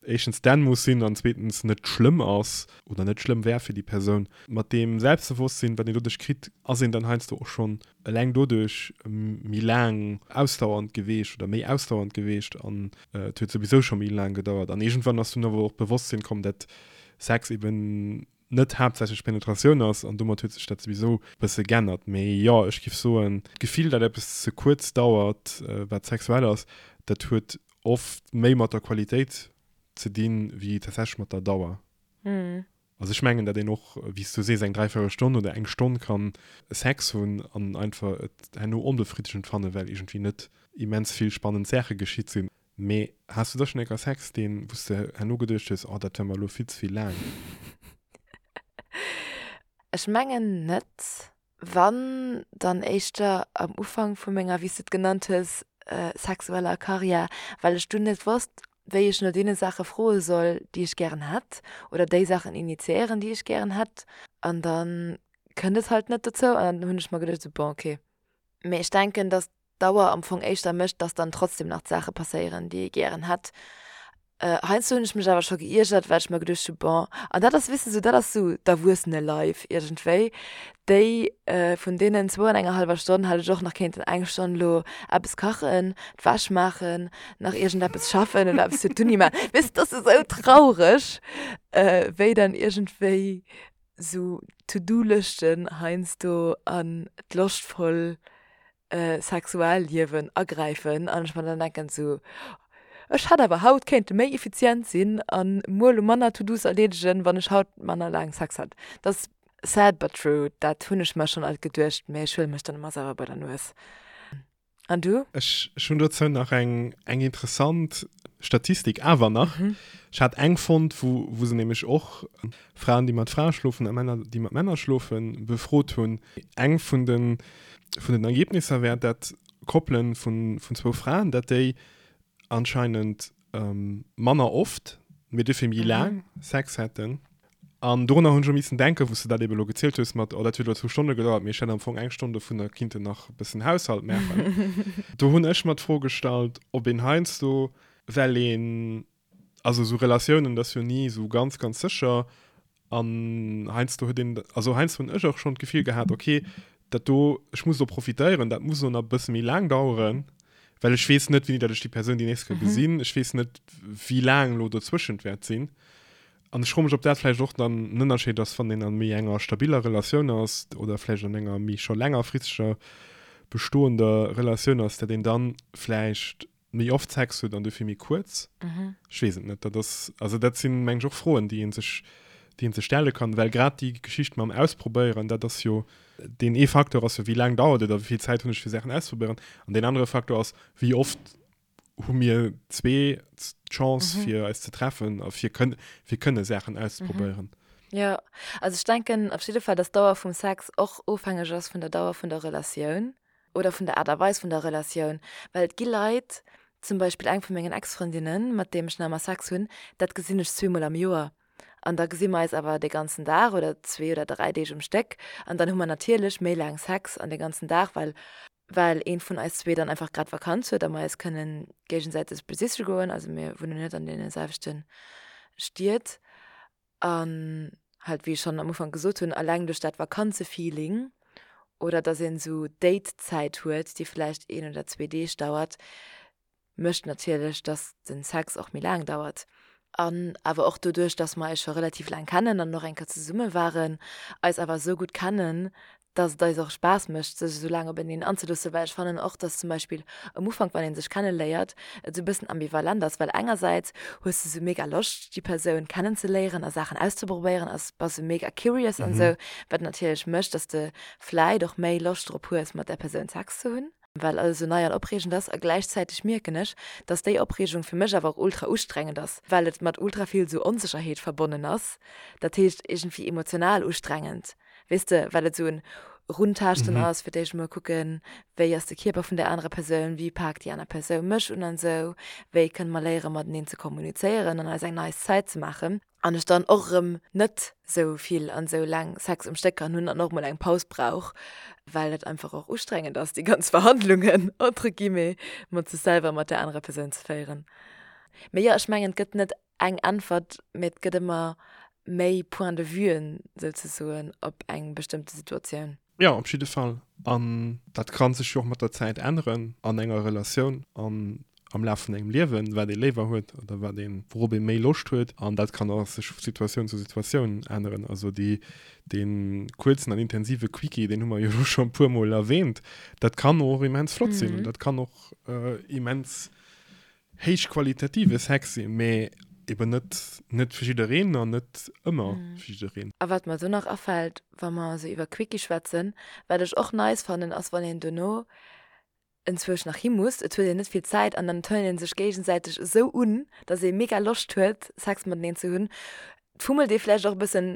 éischtens denn muss sinn an zweetens net schlëmm ass oder net schlëmm wär fir déi Persoun. Mat deem Selbstbewosstsinn, wat een doduerch kritt, ass een dann heiansdo och schonn eleng doduerch méi laang ausdauernd geweecht oder méi ausdauernd geweecht an et huet souwisou scho méi laang gedauert. An iergendwann ass dunn awer och d'Bewosstsinn komm, dat Sex eben net haaptsächlech Penetratioun ass an domat huet sech dat souwisou e bësse g'ännert. Mee jo, ech giff soen, d'Gefill, dat eppes ze kuerz dauert, wat sexuell ass, dat huet oft méi mat der Qualitéit ze dinn, wéi tatsächlech mat der Dauer. Also ech mengen, dat een och, wéi s du sees, eng dräivierel Stonn oder eng Stonn kann Sex hunn an einfach et herno onbefriddegend fannen, well iergendwéi net immens vill spannend Saache geschitt sinn. Mee has du da schonn eng Kéier Sex, deen, wou s de herno geduecht hues, oh dat war mer elo vill ze vill laang?
Ech mengen net. Wann, dann éischter am Ufank vu menger, wéi s de et genannt hues, sexueller Karriär, well ech dunn net wosst, wéi ech no deene Saache froe soll, déi ech gären hätt, oder déi Saachen initiéieren, déi ech gären hätt. An da kënnt et halt net dozou an dann hunn ech mer geduecht, esou, bon, okay. Mee ech denken, datt d'Dauer am Fong éischter mécht, dass dann trotzdem nach d'Saache passéieren, déi ee gären hätt. Heiansdo hunn ech mech awer scho geiergert, well ech mer geduecht hu bon, an dat ass, weess de, sou dat ass sou d'Erwuessene-Life iergendwéi, déi vun deenen zwou an enger hallwer Stonn hätt ech och nach kéinten eng Stonn elo eppes kachen, d'Wäsch maachen, nach iergendeppes schaffen oder eppes fir d'Uni maachen. Weess de, dat ass esou traureg, wéi dann iergendwéi sou To-do-Lëschten heiansdo an d'loschtvoll Sexualliewen agräifen an ech mer dann denken sou, ech hätt awer haut kéinte méi effizient sinn an muer lo manner To-dos erleedegen, wann ech haut manner laang Sex hätt. Dat ass sad but true, dat hunn ech mer schonn alt geduecht, mä ech huele mech dann ëmmer selwer bei der Nues. An du?
Ech hunn dozou nach eng eng interessant Statistik awer nach. Ech hat eng fonnt, wou wou se nämlech och Fraen, déi mat Frae schlofen a Männer, déi mat Männer schlofen, befrot hunn. Eng vun de vun den Ergebnisser wär, dat Koppelen vun vun zwou Fraen, dat déi anscheinend manner oft, mee dofir méi laang Sex hätten. An dorunner hunn ech och missen denken, wou s de dat ebe lo gezielt hues mat, oh dat huet elo zwou Stonne gedauert, mee ech hätt am Fong eng Stonn dovunner kinnten nach e bëssen Haushalt maachen. Do hunn ech mer d'Fro gestallt, ob een heiansdo, well een Also esou Relatiounen, dat ass jo ni esou ganz, ganz sécher. An heiansdo huet een, also heiansdo hunn ech och schonn d'Gefill gehat, okay, dat do, ech muss do profitéieren, dat muss elo nach e bësse méi laang daueren, well ech weess net, wéini datt ech déi Persoun déi nächst Kéier gesinn. Ech weess net, wéi laang elo dozwëschent wäert sinn. An ech froe mech, ob dat vläicht och dann en Ënnerscheed ass, wann een a méi enger stabiller Relatioun ass oder vläicht an enger méi scho längerfristeger bestoender Relatioun ass, datt een dann vläicht méi oft Sex huet an dofir méi kuerz. Ech weess et net. Dat ass, also dat sinn, meng ech, och Froen, déi ee sech, déi ee sech stelle kann, well grad déi Geschicht mam Ausprobéieren, dat ass jo, deen ee Facteur ass jo, wéi laang dauert et a wéi vill Zäit hunn ech fir Saachen auszeprobéieren. An deen anere Facteur ass, wéi oft hu mir zwee d'Chance fir eis ze treffen a fir kënn, fir kënne Saachen auszeprobéieren.
Jo, also ech denken op jidde Fall, dass d'Dauer vum Sex och ofhängeg ass vun der Dauer vun der Relatioun. oder vun der Aart a Weis vun der Relatioun, well et gi Leit, zum Beispill eng vu mengen Ex-Frëndinnen, mat deem ech nach ëmmer Sex hunn, dat gesinn ech zweemol am Joer an da gesi mer eis awer de ganzen Dag oder zwee oder dräi Deeg um Stéck an dann hu mer natierlech méi laang Sex an de ganzen Dag, well well een vun eis zwee dann einfach grad Vakanz huet a mer eis kënnen géigesäiteg besiche goen, also mir wunnen net an deene selwechte Stied. An halt, wéi ech schonn am Ufank gesot hunn, alleng duerch dat Vakanzefeeling oder dass een esou Date-Zäit huet, déi vläicht een oder zwee Deeg dauert, mécht natierlech, dass den Sex och méi laang dauert. An awer och doduerch, dass mer eis scho relativ laang kennen an och eng Kéier zesumme waren, eis awer esou gutt kennen, Dass et eis och Spaass mécht, sech esou laang openeen anzeloossen, well ech fannen och, dass zum Beispill am Ufank, wann ee sech kenneléiert, et esou e bëssen ambivalent ass, well engersäits hues de sou mega Loscht, déi Persoun kennenzeléieren a Saachen auszeprobéieren a bass sou mega curious an esou, wat natierlech mécht, dass de vläit och méi Loscht drop hues, mat där Persoun Sex ze hunn, well alles esou nei an opreegend ass. A gläichzäiteg mierken ech, dass déi Opreegung fir mech awer och ultra ustrengend ass, well et mat ultra vill sou Onsécherheet verbonnen ass, dat heescht iergendwéi emotional ustrengend. Weess de, well et esou en Runtaaschten ass, fir d'éischt emol kucken, wéi ass de Kierper vun där anerer Persoun, wéi paakt déi aner Persoun mech un an esou, wéi kënne mer léiere mateneen ze kommunizéieren an eis eng nice Zäit ze maachen. An ech dann och erëm net esou vill an esou laang Sex um Stéck kann hunn an och mol eng Paus brauch, well et einfach och ustrengend ass, déi ganz Verhandlungen, entre guillemets, mat sech selwer a mat där anerer Persoun ze féieren. Mee jo, ech mengen, et gëtt net eng Äntwert, mee et gëtt ëmmer méi Point de vuen souzesoen op eng bestëmmte Situatioun.
Jo, op jidde Fall. An dat ka sech jo och mat der Zäit änneren an enger Relatioun an am Laf vun engem Liewen, wat ee léiwer huet oder wat een, wourop ee méi Loscht huet. An dat kann och sech vu Situatioun zu Situatioun änneren. Also déi, dee kuerzen an intensive Quickie, deen hu mer jo elo scho e puermol erwähnt, dat kann och immens flott sinn an dat kann och immens héichqualitative Sex sinn, mee eben net net fir jiddereen an net ëmmer fir jiddereen.
A wat mer do nach afält, wa mer esou iwwer Quickie schwätzen, wat ech och nice fannen, ass wann een dono enzwousch nach hi muss, et huet een net vill Zäit an dann turnt een sech géigesäiteg esou un, dass ee mega Loscht huet Sex mateneen ze hunn. Et fummelt ee vläicht och e bëssen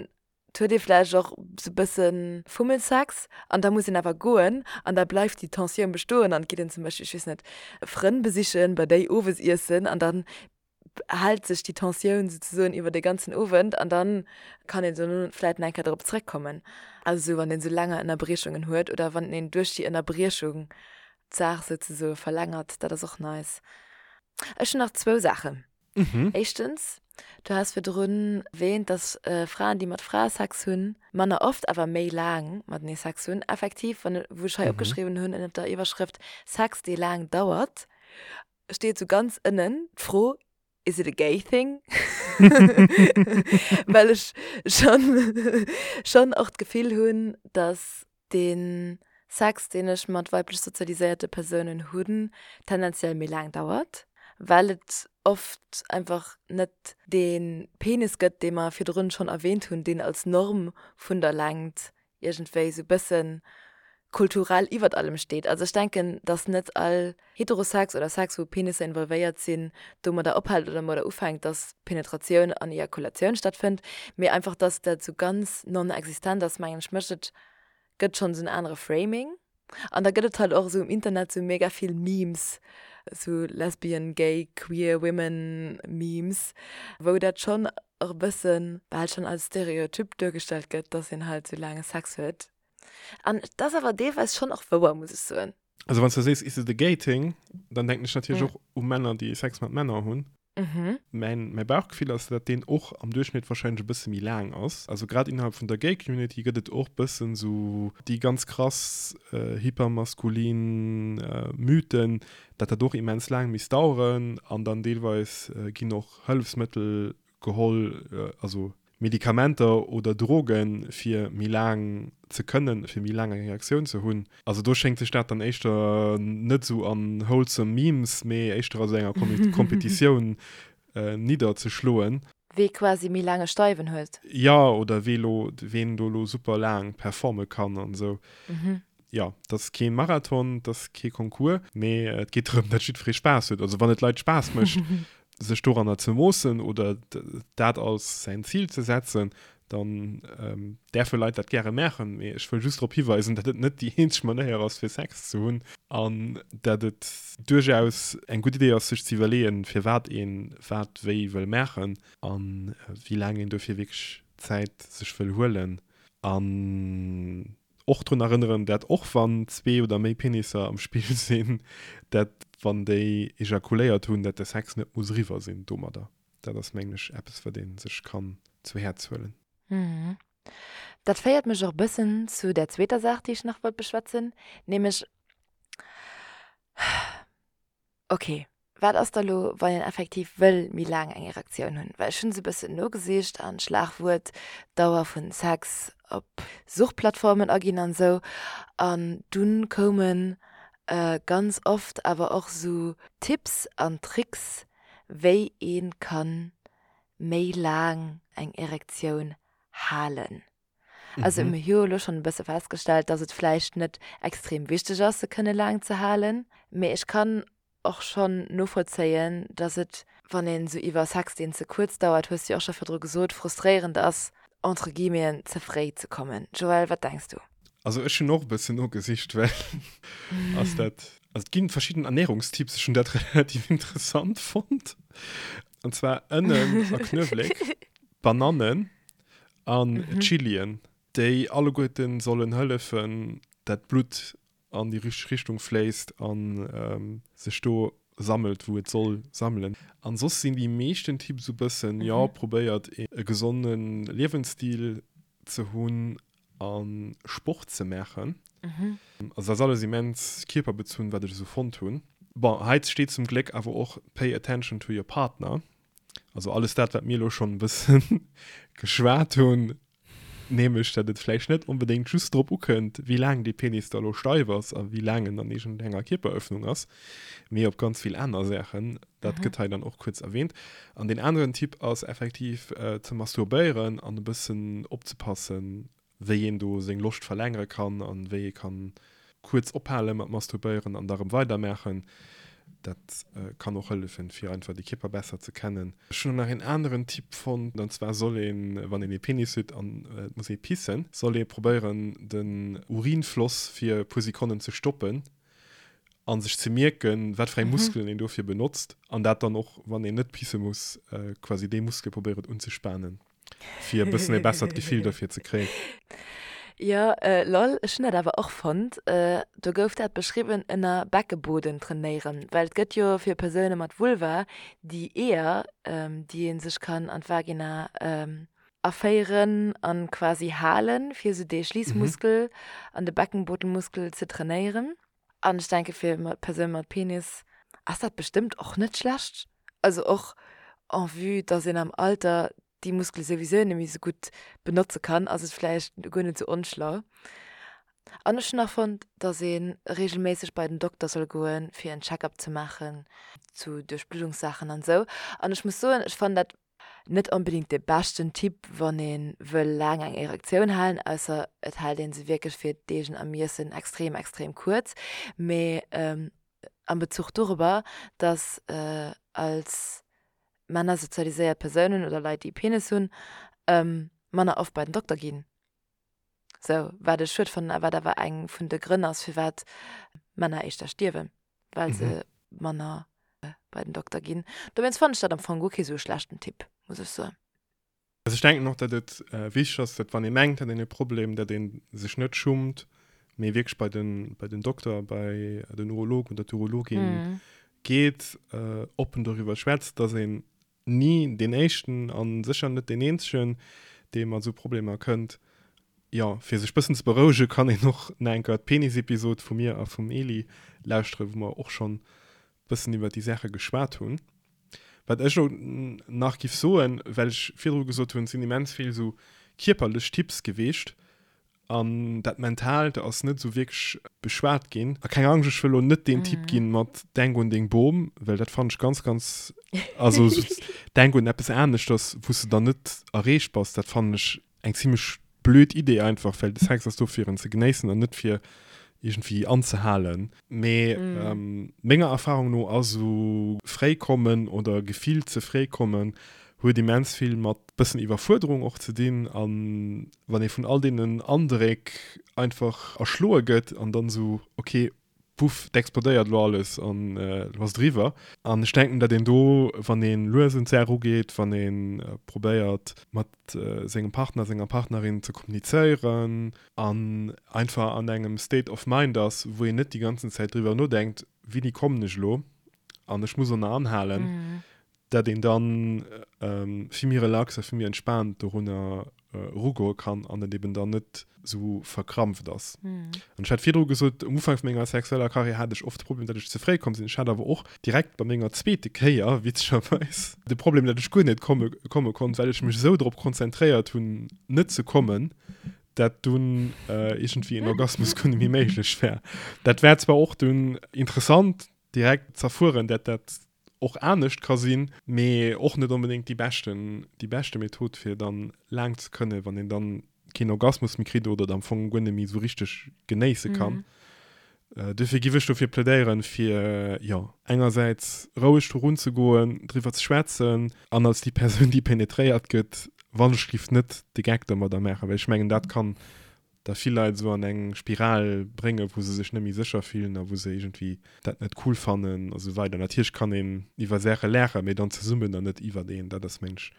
Et huet ee vläicht och sou bësse Fummelsex an da muss een awer goen an da bleift déi Tensioun bestoen an et geet een zum Beispill, ech weess net, Frënn besichen, bei déi owes iessen an dann hält sech déi Tensioun souzesoen iwwer de ganzen Owend an dann kann een dono vläicht nach eng Kéier drop zréckkommen. Also sou wann een sou länger Ënnerbriechungen huet oder wann een duerch déi Ënnerbriechung d'Saach souzesoe verlängert, dat ass och nice. Ech hunn nach zwou Saachen. Éischtens, du has virdrun erwähnt, dass Fraen, déi mat Frae Sex hunn, manner oft, awer méi laang matenee Sex hunn. Effektiv, wann, wou ech hei opgeschriwwen hunn ënnert der Iwwerschrëft Sex, dee laang dauert, steet sou ganz ënnen d'Fro, Is it a gay thing? Well ech schonn, schonn och d'Gefill hunn, dass dee Sex, deen ech mat weiblech sozialiséierte Persounen hunn, tendenziell méi laang dauert, well et oft einfach net dee Penis gëtt, dee mer virdrun schonn erwähnt hunn, deen als Norm vun der Längt iergendwéi esou bësse kulturell iwwert allem steet. Also ech denken, datt net all Heterosex oder Sex, wou Penisser involvéiert sinn, domadder ophält oder domadder ufänkt, datt Penetratioun an Ejakulatioun stattfënnt, mee einfach, datt dat esou ganz non-existent ass, mengen ech, mécht et, gëtt schonn esou en anere Framing. An da gëtt et halt och esou um Internet esou mega vill Memes, esou lesbian, gay, queer women Memes, wou dat schonn och e bëssen bal schonn als Stereotyp duergestallt gëtt, datt een halt esou laange Sex huet. An et ass awer deelweis schonn och wouer, muss ech soen.
Also wann s du sees, is it a gay thing, dann denken ech natierlech och u Männer, déi Sex mat Männer hunn. Mäin, mäi Bauchgefill ass, dat deen och am Duerchschnitt warscheinlech e bësse méi laang ass. Also grad innerhalb vun der Gay Community gëtt et och bëssen esou déi ganz krass hypermaskulin Mythen, dat dat och immens laang misst daueren an dann deelweis ginn och Hëllefsmëttel geholl, also Medikamenter oder Drogen, fir méi laang ze kënnen, fir méi laang eng Erektioun ze hunn. Also do schéngt sech dat dann éischter net esou an wholesome Memes, mee éischter a sou enger Kompetitioun nidderzeschloen.
Wee quasi méi laang e Steiwen huet.
Jo, oder wee lo, ween do lo super laang performe kann an esou. Jo, et ass kee Marathon, et ass kee Concours, mee et geet drëm, datt jiddweree Spaass huet. Also wann et Leit Spaass mécht, sech doranner ze moossen oder dat als säin Zil ze setzen, dann däerfe Leit dat gäre maachen. Mee ech wëll just drop hiweisen, datt et net déi eenzeg Manéier ass, fir Sex ze hunn an datt et duerchaus eng gutt Idee ass, sech ze iwwerleeën, firwat een wat wéi wëll maachen a wéi laang een dofir wierklech Zäit sech wëll huelen. An Och drun erënneren, dat och wann zwee oder méi Penisser am Spill sinn, dat wann déi ejakuléiert hunn, dat de Sex net muss eriwwer sinn domadder. Dat ass mengen ech eppes wat ee sech kann zu Häerz huelen.
Dat féiert mech och bëssen zu där zweeter Saach, déi ech nach wollt beschwätzen, nämlech, ok. Wat ass da lo, wann een effektiv wëll méi laang eng Erektioun hunn? Well ech hunn esou e bëssen nogesicht an d'Schlagwuert Dauer vun Sex op Suchplattformen aginn an esou an dunn koumen ganz oft awer och esou Tipps an Tricks wéi ee kann méi laang eng Erektioun halen. Also mir hu jo elo schonn e bësse festgestellt, dass et vläicht net extrem wichteg ass, se kënne laang ze halen. Mee ech kann och schonn novollzéien, dass et, wann een esou iwwer Sex, deen ze kuerz dauert, hues du jo och scho virdru gesot, frustréierend ass, entre guillemeten, ze fréi ze kommen. Joël, wat denks du?
Also ech hunn och e bëssen nogesicht, well ass dat, also et ginn verschidden Ernährungstipps, ech hunn dat relativ interessant fonnt, an zwar Ënnen a Knuewléck, Banannen, an Chilien, déi alleguerten sollen hëllefen, dat d'Blutt an déi richteg Richtung fléisst a sech do sammelt, wou et soll sammelen. An soss sinn déi meeschten Tipps esou bëssen, jo, probéiert e gesonde Liewensstil ze hunn a Sport ze maachen. Also dat ass alles immens kierperbezunn, wat ech esou fonnt hunn. Bon, hei steet zum Gléck awer och Pay attention to your partner. Also alles dat, wat mir elo schonn e bësse geschwat hunn, nämlech dat et vläicht net onbedéngt just drop ukënnt, wéi laang dee Penis da elo steif ass a wéi laang en an iergendenger Kierperëffnung ass, mee op ganz vill aner Saachen. Dat gëtt hei dann och kuerz erwähnt. An deen aneren Tipp ass effektiv ze masturbéieren an e bëssen opzepassen, wéi een do seng Loscht verlängere kann an wéi ee kann kuerz ophale mat masturbéieren an da rëm weidermaachen. Dat kann och hëllefen, fir einfach de Kierper besser ze kennen. Ech hunn och nach een aneren Tipp fonnt, an zwar soll een, wann een ee Penis huet an et muss ee pissen, soll ee probéieren den Urinfloss fir e puer Sekonnen ze stoppen a sech ze mierken, wat fir eng Muskelen een dofir benotzt an dat dann och, wann een net pisse muss, quasi déi Muskele probéieren unzespanen. Fir e bëssen e bessert Gefill dofir ze kréien.
Jo, lol, ech hunn dat awer och fonnt. Do gouf dat beschriwwen ënner Beckeboden trainéieren, well et gëtt jo fir Persoune mat Vulva déi Eeër, déi ee sech kann an d'Vagina aféieren an quasi halen, fir esou dee Schliissmuskel an de Beckenbodenmuskel ze trainéieren. An ech denke fir Persoune mat Penis ass dat bestëmmt och net schlecht. Also och en vue, dass een am Alter déi Muskele souwisou net méi esou gutt benotze kann, ass et vläicht guer net esou onschlau. An ech hunn nach fonnt, dass ee reegelméisseg bei den Dokter soll goen, fir en Check-up ze maachen zu Duerchbluddungssaachen an esou. An ech muss soen, ech fannen dat Net onbedingt de beschten Typ wann een wëll laang eng Erektioun halen, ausser et hält een se wierklech fir d'eegen Ermiessen extrem extrem kuerz, mee am Bezuch dorobber dass als Männer sozialiséiert Persounen oder Leit déi e Penis hunn manner oft bei den Dokter ginn. Sou, wat ech schued fannen a wat awer eng vun de Grënn ass firwat Männer éischter stierwen. well se manner bei den Dokter ginn. Dowéinst fannen ech dat am Fong guer kee sou e schlechten Tipp, muss ech soen.
Also ech denken och, datt et wichteg ass, datt wann ee mengt, hat een e Problem, datt ee sech net schummt, mee wierklech bei den, bei den Dokter, bei den Urolog oder d'Urologin geet, oppen doriwwer schwätzt, datt een ni deen éischten a sécher net deen eenzegen, dee mat esou Problemer kënnt. Jo, fir sech bëssen ze berouege kann een och nach eng Kéier d'Penis-Episod vu mir a vum Eli lauschteren, wou mer och schonn bëssen iwwer déi Saache geschwat hunn. Wat ech elo nach giff soen, well ech virdru gesot hunn, et sinn immens vill esou kierperlech Tipps geweecht, An dat Mentaalt ass net esou wierklech beschwat ginn. A keng Angscht, ech wëll elo net deen Typ ginn mat Denk un deng Bom, well dat fannen ech ganz, ganz, also denk un eppes aneschters, wou s de dann net erreecht bass, dat fannen ech eng zimmlech blöd Idee einfach, well de Sex ass do fir en ze genéissen an net fir iergendwéi anzehalen. Mee menger Erfahrung no ass esou fréi kommen oder gefillt ze fréi kommen huet immens vill mat bëssen Iwwerfuerderung och ze dinn an wann ee vun all deenen Andréck einfach erschloe gëtt an dann esou ok puff, et explodéiert elo alles an elo ass et eriwwer. An ech denken, datt een do, wann ee lues un d'Saach ugeet, wann ee probéiert mat sengem Partner, senger Partnerin ze kommunizéieren an einfach an engem State of Mind ass, wou een net déi ganzen Zäit driwwer nodenkt, wéini kommen ech elo an ech muss och nach anhalen. Dat een dann vill méi relax a vill méi entspaant dorunner erugoe kann an et eben dann net esou verkrampft ass. An ech hat virdru gesot, um Ufank vu menger sexueller Karriär hat ech oft de Problem, datt ech ze fréi komm sinn. Ech hat awer och direkt bei menger zweete Kéier, witzegerweis, de Problem, datt ech guer net komme komme konnt, well ech mech esou drop konzentréiert hunn, net ze kommen, dat dunn iergendwéi en Orgasmus guer net méi méiglech war. Dat war zwar och dunn interessant direkt z'erfueren, dat dat och anescht ka sinn, mee och net onbedéngt déi beschten, déi beschte Method fir dann laang ze kënnen, wann een dann keen Orgasmus méi kritt oder et am Fong guer net méi esou richteg genéisse kann. Duerfir giff ech dofir plädéieren, fir jo engersäits roueg do runzegoen, driwwer ze schwätzen an als déi Persoun déi penetréiert gëtt, wann ech giff net de Geck domadder maachen, well ech mengen dat kann da vill Leit esou an eng Spiral bréngen, wou se sech net méi sécher fillen a wou se iergendwéi dat net cool fannen a sou weider. Natierlech kann een iwwer Saache laachen, mee dann zesummen an net iwwert een. Dat ass, meng ech,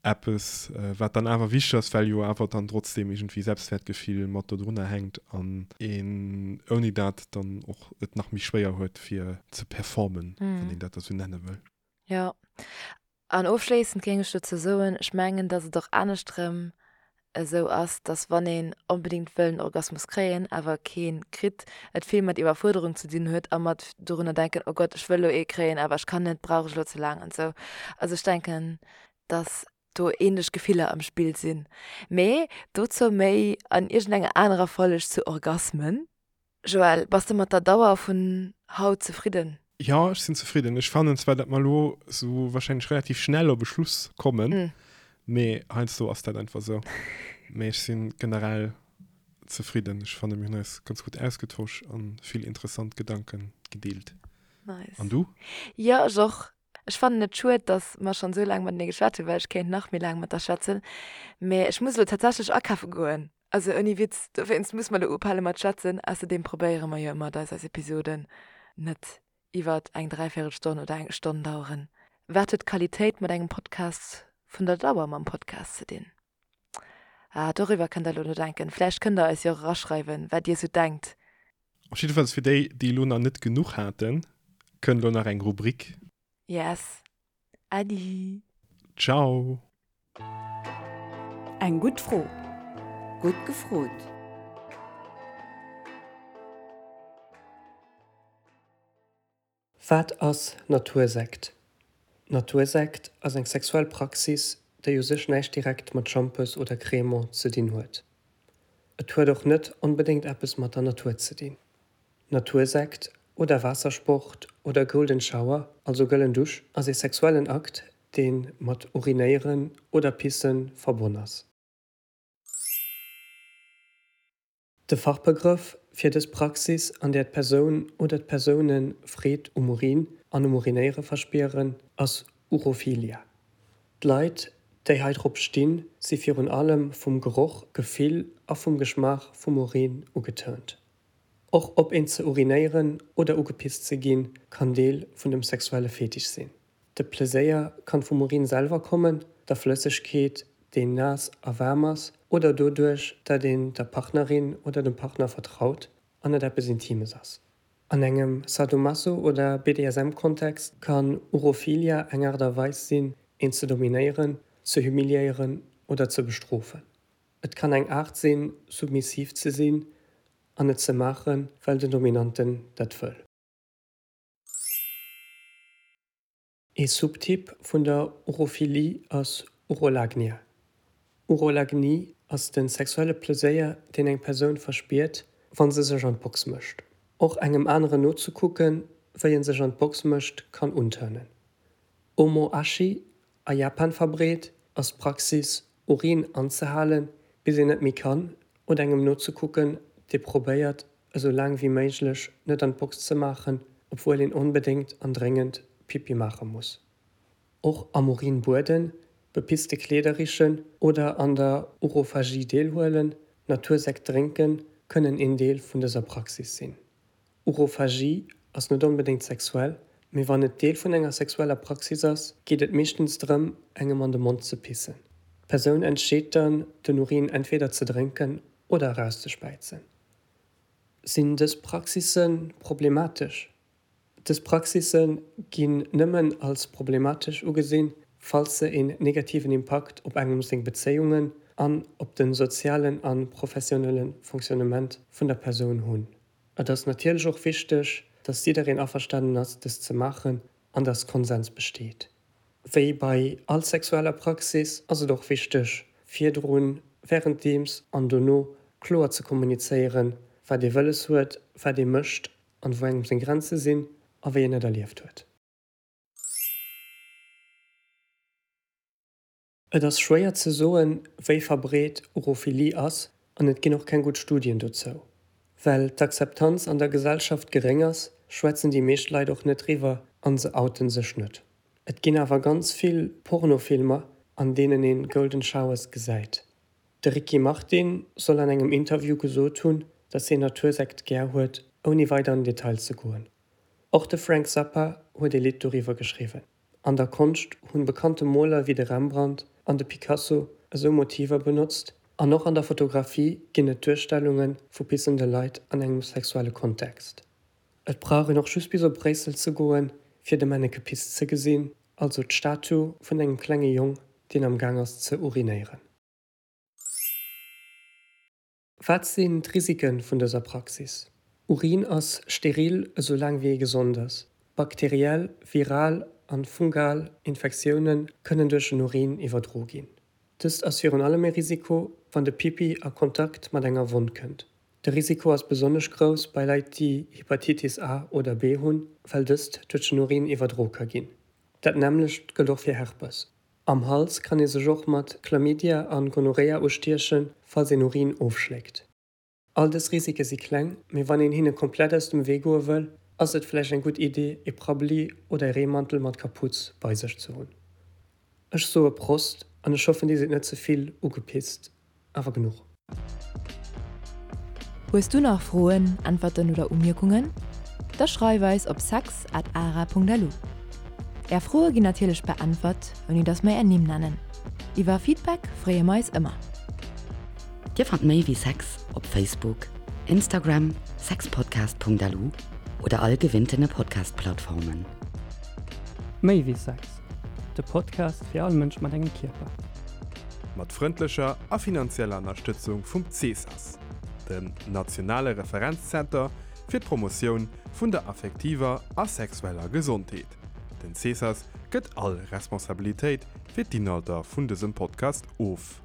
eppes, wat dann awer wichteg ass, well jo awer dann trotzdeem iergendwéi Selbstwäertgefill mat dodrunner hänkt an een ouni dat dann och et nach méi schwéier huet, fir ze performen, wann een dat da sou nenne wëll.
Jo, An ofschléissend géing ech dozou soen, ech mengen, dass et och aneschtrëm esou ass, dass wann een onbedéngt wëll en Orgasmus kréien, awer kee kritt, et vill mat Iwwerfuerderung ze dinn huet a mat dorunner denken, oh Gott, ech wëll elo ee kréien, awer ech kann net, brauch ech elo ze laang an esou. Also ech denken, dass do ähnlech Gefiller am Spill sinn. Mee dozou méi an iergendenger anerer Folg zu Orgasmen. Joël, bass de mat der Dauer vun haut zefridden?
Jo, ech sinn zefridden. Ech fannen zwar, datt mer elo sou wahrscheinlech relativ schnell op e Schluss kommen, mee heiansdo ass dat einfach sou. Mee ech si generell zefridden. Ech fanne mir hunn eis ganz gutt ausgetosch an vill interessant Gedanke gedeelt.
Nice.
An du?
Jo, ech och. Ech fannen et schued, dass mer schonn esou laang matenee geschwat hunn, well ech kéint nach méi laang mat der schwätzen. Mee ech muss elo tatsächlech akafe goen. Also ouni Witz, dowéinst muss mer elo ophale mat schwätzen. Ausserdeem probéiere mer jo ëmmer, dass eis Episoden net iwwert eng Dräivéierelstonn oder eng Stonn daueren. Wat huet d'Qualitéit mat engem Podcast vun der Dauer mam Podcast ze dinn? Ah, doriwwer kënnt der elo nodenken. Vläicht kënnt der eis jo och eraschreiwen, wat dir esou denkt.
Op jiddefalls fir déi, déi elo nach net genuch haten, kënnt elo nach eng Rubrik.
Yes. Äddi.
Ciao.
Eng gutt Fro.
Gutt gefrot.
Wat ass Natursekt? Natursekt ass eng sexuell Praxis, déi u sech näischt direkt mat Schampes oder Cremant ze dinn huet. Et huet och net onbedéngt eppes mat der Natur ze dinn. Natursekt oder Waassersport oder Golden Shower, also gëllen Dusch, ass ee sexuellen Akt, dee mat Urinéieren oder Pisse verbonn ass. De Fachbegrëff fir dës Praxis, an där d'Persoun oder d'Persoune Freed um Urin an um Urinéiere verspieren, ass Urophilia. D'Leit, déi hei drop stinn, si virun allem vum Geroch, Gefill a vum Geschmaach vum Urin ugeturnt. Och op een ze urinéieren oder ugepisst ze ginn, kann Deel vun dem sexuelle Fetisch sinn. De Pleséier kann vum Urin selwer kommen, der Flëssegkeet, déi naass a waarm ass, oder doduerch, dat een der Partnerin oder dem Partner vertraut an et eppes Intimes ass. An engem Sadomaso oder BDSM-Kontext kann Urophilia eng Aart a Weis sinn, een ze dominéieren, ze humiliéieren oder ze bestrofen. Et kann eng Aart sinn, submissiv ze sinn an et ze maachen, well den Dominanten dat wëll. Ee Subtyp vun der Urophilie ass Urolagnia. Urolagnie ass de sexuelle Pleséier, deen eng Persoun verspiert, wa se sech an d'Box mécht. Och engem aneren nozekucken, wéi en sech an d'Box mécht, kann unturnen. Omoashi A Japan verbreet ass d'Praxis, Urin anzehalen, bis een net méi kann, oder engem nozekucken, dee probéiert, esou laang wéi méiglech net an d'Box ze maachen, obwuel een onbedéngt an dréngend Pipi maache muss. Och am Urin bueden, bepisste Kleeder richen oder an der Urophagie deelhuelen, Natursekt drénken, kënnen een Deel vun dëser Praxis sinn. Urophagie ass net onbedéngt sexuell, mee wann et Deel vun enger sexueller Praxis ass, geet et meeschtens drëm, engem an de Mond ze pissen. D'Persoun entscheet dann, den Urin entweder ze drénken oder erauszespäizen. Sinn dës Praxisse problematesch? Dës Praxisse ginn nëmmen als problematesch ugesinn, falls se een negativen Impakt op engem seng Bezéiungen an op de sozialen a professionelle Fonctionnement vun der Persoun hunn. Et ass natierlech och wichteg, dass jiddereen averstanen ass, dëst ze maachen an dass Konsens besteet. Wéi bei all sexueller Praxis ass et och wichteg, virdrun, wärenddeems an dono kloer ze kommunizéieren, wat ee wëlles huet, wat ee mécht an wou engem seng Grenze sinn a wéi een et erlieft huet. Et ass schwéier ze soen, wéi verbreet Urophilie ass an et ginn och keng gutt Studien dozou. Well d'Akzeptanz an der Gesellschaft geréng ass, schwätzen déi meescht Leit och net driwwer an se outen sech net. Et ginn awer ganz vill Pornofilmer, an deenen een Golden Showers gesäit. De Ricky Martin soll an engem Interview gesot hunn, dass hien Natursekt gär huet, ouni weider an den Detail ze goen. Och de Frank Zappa huet ee Lidd doriwwer geschriwwen. An der Konscht hunn bekannte Moler wéi de Rembrandt an de Picasso esou Motiver benotzt an och an der Fotografie ginn et Duerstellunge vu pissende Leit an engem sexuelle Kontext. Et brauch een och just bis op Bréissel ze goen, fir de Menneke Piss ze gesinn, also d'Statu vun engem klenge Jong, deen am Gaang ass ze urinéieren. Wat sinn d'Risike vun dëser Praxis? Urin ass steril esou laang wéi ee gesond ass. Bakteriell, viral an fungal Infektioune kënnen duerch den Urin iwwerdro ginn. Dëst ass virun allem e Risiko, wann de Pipi a Kontakt mat enger Wonn kënnt. De Risiko ass besonnesch grouss bei Leit déi Hepatitis A oder B hunn, well dëst duerch den Urin iwwerdro ka ginn. Dat nämmlecht gëllt och fir Herpes. Am Hals kann ee sech och mat Chlamydia an Gonorrhea ustiechen, falls een Urin ofschléckt. All dës Risike si kleng, mee wann een hinne komplett aus dem Wee goe wëll, ass et vläicht eng gutt Idee, ee Prabbeli oder ee Reemantel mat Kaputz bei sech ze hunn. Ech soe Prost an ech hoffen dir sidd net ze vill ugepisst. Awer genuch.
Hues du nach Froen, Äntwerten oder Umierkungen? Da schreif eis op sex at ara.lu. Är Froe ginn natierlech beäntwert, ouni dass mer är Nimm nennen. Iwwer Feedback freeë mer eis ëmmer.
Dir fannt méi wéi Sex op Facebook, Instagram, sexpodcast.lu oder all gewinntene Podcast-Plattformen.
Méi wéi Sex, de Podcast fir all Mënsch mat engem Kierper.
Mat frëndlecher a finanzieller Ënnerstëtzung vum CESAS, dem nationale Referenzzenter fir d'Promotioun vun der affektiver a sexueller Gesondheet. Den CESAS gëtt all Responsabilitéit fir d'Inhalter vun dësem Podcast of.